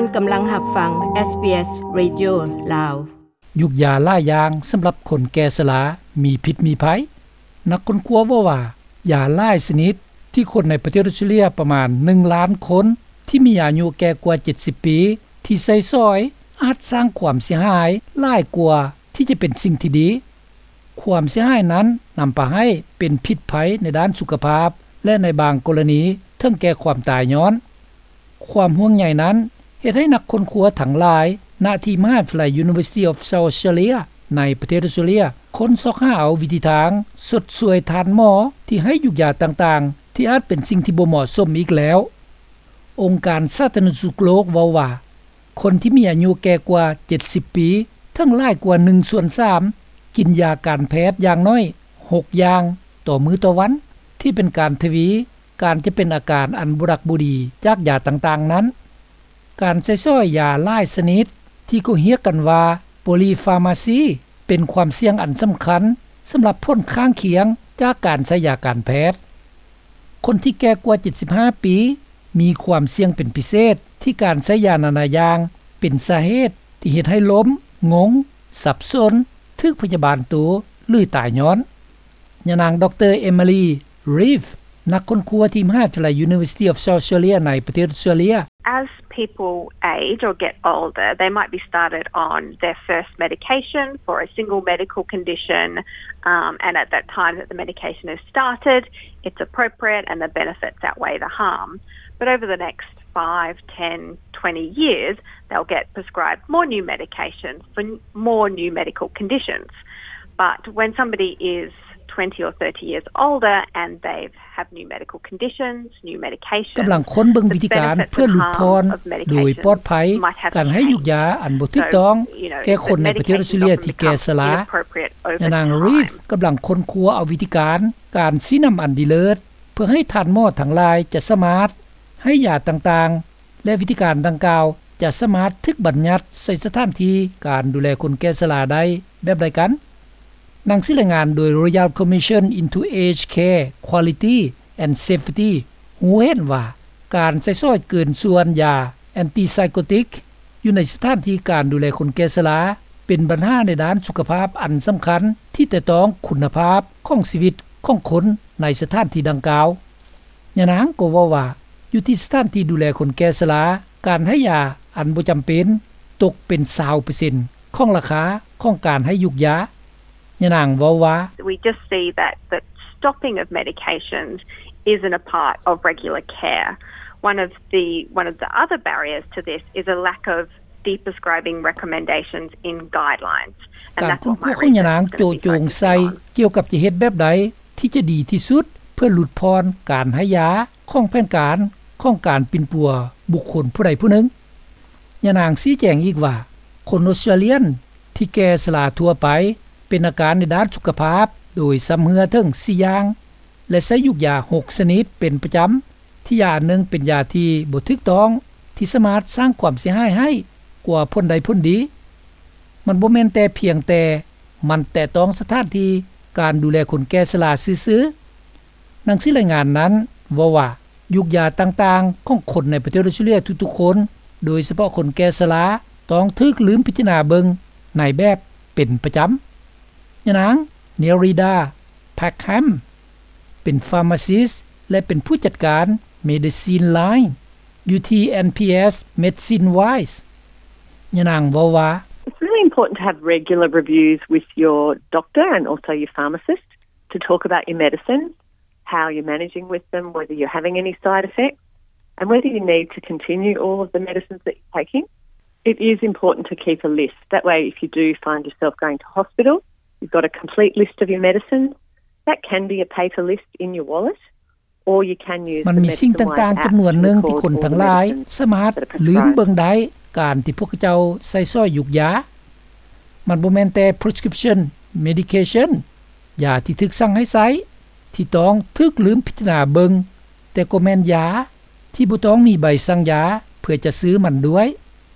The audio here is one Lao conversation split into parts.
ທ່ານກຳລັງຮັບຟັງ ເອສບີເອສ Radio ລາວ. ຢູກຢາຫຼາຍຢ່າງສຳລັບຄົນແກ່ຊະລາມີພິດມີໄພ. ນັກຄົ້ນຄວ້າເວົ້າວ່າ ຢາຫຼາຍຊະນິດທີ່ຄົນໃນປະເທດອົດສະຕຣາເລຍປະມານໜຶ່ງລ້ານຄົນທີ່ມີອາຍຸແກ່ກວ່າເຈັດສິບປີ ທີ່ໃຊ້ສອຍອາດສ້າງຄວາມເສຍຫາຍຫຼາຍກວ່າທີ່ຈະເປັນສິ່ງທີ່ດີ. ຄວາມເສຍຫາຍນັ້ນນຳພາໃຫ້ເປັນພິດໄພໃນດ້ານສຸຂະພາບ ແລະ ໃນບາງກໍລະນີເຖິງແກ່ຄວາມຕາຍຍ້ອນ. ຄວາມຫ່ວງໃຍນັ້ນເຮັດໃຫ້ນັກຄົ້ນຄວ້າທັງຫຼາຍ ນະທີ່ມະຫາວິທະຍາໄລ University of South Australia ໃນປະເທດອົດສະຕຣາເລຍ ຄົ້ນຊອກຫາເອົາວິທີທາງຊົດຊ່ວຍທ່ານໝໍທີ່ໃຫ້ຢູກຢາຕ່າງໆ ທີ່ອາດເປັນສິ່ງທີ່ບໍ່ເໝາະສົມອີກແລ້ວ. ອົງການສາທາລະນະສຸກໂລກເວົ້າວ່າ ຄົນທີ່ມີອາຍຸແກ່ກວ່າເຈັດສິບປີ ເຖິງຫຼາຍກວ່າໜຶ່ງສ່ວນສາມ ກິນຢາການແພດຢ່າງໜ້ອຍຫົກຢ່າງຕໍ່ມື້ຕໍ່ວັນ ທີ່ເປັນການທະວີ ການຈະເປັນອາການອັນບໍ່ດັກບໍ່ດີຈາກຢາຕ່າງໆນັ້ນ. ການໃຊ້ສອຍຢາຫຼາຍຊະນິດທີ່ເຂົາຮຽກກັນວ່າ Polypharmacy ເປັນຄວາມສ່ຽງອັນສຳຄັນສຳລັບຜົນຂ້າງຄຽງຈາກການໃຊ້ຢາການແພດ. ຄົນທີ່ແກ່ກວ່າເຈັດສິບຫ້າປີ ມີຄວາມສ່ຽງເປັນພິເສດທີ່ການໃຊ້ຢານານາຢ່າງເປັນສາເຫດທີ່ເຮັດໃຫ້ລົ້ມ, ງົງ, ສັບສົນ, ຖືກພະຍາບານໂຕ ຫຼື ຕາຍຍ້ອນ. ຍານາງ ດຣ. Emily Reeve ນັກຄົ້ນຄວ້າທີ່ມະຫາວິທະຍາໄລ University of South Australia ໃນປະເທດອົດສະຕຣາເລຍ. As people age or get older, they might be started on their first medication for a single medical condition, um, and at that time that the medication is started, it's appropriate and the benefits outweigh the harm. But over the next five, ten, twenty years, they'll get prescribed more new medication for n- more new medical conditions. But when somebody is twenty or thirty years older and they've have new medical conditions, new medication, ກຳລັງຄົ້ນເບິ່ງວິທີການເພື່ອຫຼຸດຜ່ອນໂດຍປອດໄພການໃຫ້ຢູກຢາອັນບໍ່ຖືກຕ້ອງແກ່ຄົນໃນປະເທດອົດສະຕຣາເລຍທີ່ແກ່ຊະລາ. ຍານາງ Reeve ກຳລັງຄົ້ນຄວ້າເອົາວິທີການ ການຊີ້ນຳອັນດີເລີດ ເພື່ອໃຫ້ທ່ານໝໍທັງຫຼາຍຈະສາມາດໃຫ້ຢາຕ່າງໆ ແລະ ວິທີການດັ່ງກ່າວຈະສາມາດຖືກບັນຍັດໃສ່ສະຖານທີ່ການດູແລຄົນແກ່ຊະລາໄດ້ແບບໃດກັນ? ໜັງສືລາຍງານໂດຍ Royal Commission into Aged Care Quality and Safety ຮູ້ເຫັນວ່າ ການໃຊ້ສອຍເກີນສ່ວນຢາ antipsychotic ຢູ່ໃນສະຖານທີ່ການດູແລຄົນແກ່ຊະລາ ເປັນບັນຫາໃນດ້ານສຸຂະພາບອັນສຳຄັນທີ່ແຕະຕ້ອງຄຸນນະພາບຂອງຊີວິດຂອງຄົນໃນສະຖານທີ່ດັ່ງກ່າວ. ຍານາງກໍເວົ້າວ່າ ຢູ່ທີ່ສະຖານທີ່ດູແລຄົນແກ່ຊະລາ ການໃຫ້ຢາອັນບໍ່ຈຳເປັນຕົກເປັນຊາວເປີເຊັນຂອງລາຄາຂອງການໃຫ້ຢູກຢາ. ຍານາງເວົ້າວ່າ We just see that the stopping of medications isn't a part of regular care. One of the, one of the other barriers to this is a lack of deprescribing recommendations in guidelines. ການຄົ້ນຄວ້າຂອງຍານາງໂຈະຈົງໃສ່ກ່ຽວກັບຈະເຮັດແບບໃດ ທີ່ຈະດີທີ່ສຸດເພື່ອຫຼຸດຜ່ອນການໃຫ້ຢາຂອງແຜນການຂອງການປິ່ນປົວບຸກຄົນຜູ້ໃດຜູ້ໜຶ່ງ. ຍານາງຊີ້ແຈງອີກວ່າ ຄົນອົດສະຕຣາເລຍນທີ່ແກ່ຊະລາທົ່ວໄປ ເປັນອາການໃນດ້ານສຸຂະພາບໂດຍຊຳເຮື້ອເຖິງສີ່ຢ່າງ ແລະ ໃຊ້ຢູກຢາຫົກຊະນິດເປັນປະຈຳ ທີ່ຢາອັນໜຶ່ງເປັນຢາທີ່ບໍ່ຖືກຕ້ອງ ທີ່ສາມາດສ້າງຄວາມເສຍຫາຍໃຫ້ກວ່າຜົນໄດ້ຜົນດີ. ມັນບໍ່ແມ່ນແຕ່ພຽງແຕ່ມັນແຕະຕ້ອງສະຖານທີ່ການດູແລຄົນແກ່ຊະລາຊື່ໆ. ໜັງສືລາຍງານນັ້ນເວົ້າວ່າ ຢູກຢາຕ່າງໆຂອງຄົນໃນປະເທດອົດສະຕຣາເລຍທຸກໆຄົນ ໂດຍສະເພາະຄົນແກ່ຊະລາ ຕ້ອງຖືກລືມພິຈາລະນາເບິ່ງໃນແບບເປັນປະຈຳ. ຍານາງ Nerida Packham ເປັນ pharmacist ແລະ ເປັນຜູ້ຈັດການ Medicine Line ຢູ່ທີ່ NPS Medicine Wise. ຍານາງເວົ້າວ່າ It's really important to have regular reviews with your doctor and also your pharmacist to talk about your medicines, how you're managing with them, whether you're having any side effects, and whether you need to continue all of the medicines that you're taking. It is important to keep a list. That way, if you do find yourself going to hospital, you've got a complete list of your medicines. That can be a paper list in your wallet, or you can use the Medicine Wise app to record all the medicines that are prescribed. ມັນມີສິ່ງຕ່າງໆຈຳນວນໜຶ່ງທີ່ຄົນທັງຫຼາຍສາມາດລືມເບິ່ງໄດ້ ການທີ່ພວກເຈົ້າໃຊ້ສອຍຢູກຢາ. ມັນບໍ່ແມ່ນແຕ່ prescription medication ຢາທີ່ຖືກສັ່ງໃຫ້ໃຊ້ ທີ່ຕ້ອງຖືກລືມພິຈາລະນາເບິ່ງ, ແຕ່ກໍແມ່ນຢາທີ່ບໍ່ຕ້ອງມີໃບສັ່ງຢາເພື່ອຈະຊື້ມັນດ້ວຍ,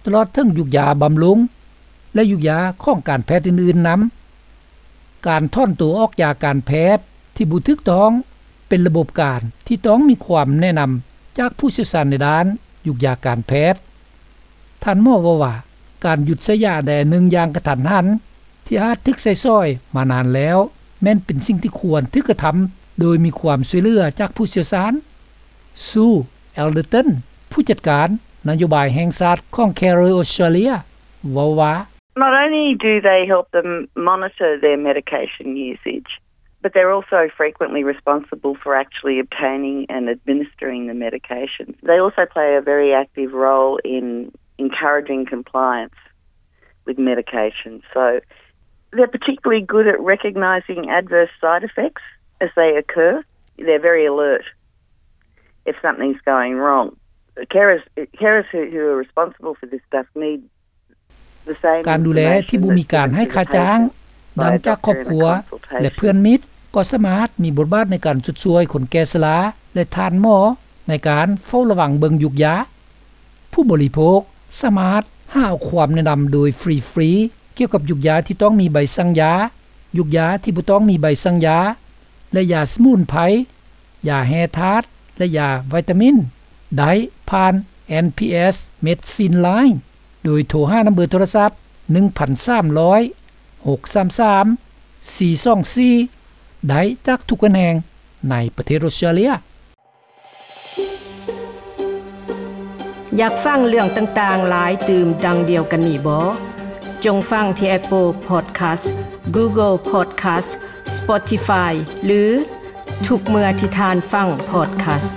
ຕະຫຼອດເຖິງຢູກຢາບຳລຸງ ແລະ ຢູກຢາຂອງການແພດອື່ນໆນຳ. ການຖອນໂຕອອກຢາການແພດທີ່ບໍ່ຖືກຕ້ອງ ເປັນລະບົບການທີ່ຕ້ອງມີຄວາມແນະນຳຈາກຜູ້ຊ່ຽວຊານໃນດ້ານຢູກຢາການແພດ. ທ່ານໝໍເວົ້າວ່າ ການຢຸດໃຊ້ຢາໃດອັນໜຶ່ງຢ່າງກະທັນຫັນ ທີ່ອາດຖືກໃຊ້ສອຍມານານແລ້ວ ແມ່ນເປັນສິ່ງທີ່ຄວນຖືກກະທຳ ໂດຍມີຄວາມຊ່ວຍເຫຼືອຈາກຜູ້ຊ່ຽວຊານ. Sue Elderton ຜູ້ຈັດການນະໂຍບາຍແຫ່ງຊາດຂອງ Carer Australia ເວົ້າວ່າ Not only do they help them monitor their medication usage, but they're also frequently responsible for actually obtaining and administering the medication. They also play a very active role in encouraging compliance with medication. So they're particularly good at recognising adverse side effects as they occur. They're very alert if something's going wrong. Carers, carers who, who are responsible for this stuff need ການດູແລທີ່ບໍ່ມີການໃຫ້ຄ່າຈ້າງ ດັ່ງຈາກຄອບຄົວ ແລະ ເພື່ອນມິດ ກໍສາມາດມີບົດບາດໃນການຊົດຊ່ວຍຄົນແກ່ຊະລາ ແລະ ທ່ານໝໍໃນການເຝົ້າລະວັງເບິ່ງຢູກຢາ. ຜູ້ບໍລິໂພກສາມາດຫາເອົາຄວາມແນະນຳໂດຍຟຣີໆ ກ່ຽວກັບຢູກຢາທີ່ຕ້ອງມີໃບສັ່ງຢາ, ຢູກຢາທີ່ບໍ່ຕ້ອງມີໃບສັ່ງຢາ ແລະ ຢາສະໝຸນໄພ, ຢາແຮ່ທາດ ແລະ ຢາວິຕາມິນ ໄດ້ຜ່ານ ເອັນພີເອັສ Medicine Line ໂດຍໂທຫານຳເບີໂທລະສັບ ໜຶ່ງພັນສາມຮ້ອຍ ຫົກສາມສາມ ສີ່ສອງສີ່ ໄດ້ຈາກທຸກແຂວງໃນປະເທດອົດສະຕຣາເລຍ. ຢາກຟັງເລື່ອງຕ່າງໆຫຼາຍຕື່ມດັ່ງດຽວກັນນີ້ບໍ? ຈົ່ງຟັງທີ່ Apple Podcast, Google Podcast, Spotify ຫຼື ທຸກເມື່ອທີ່ທ່ານຟັງ Podcast.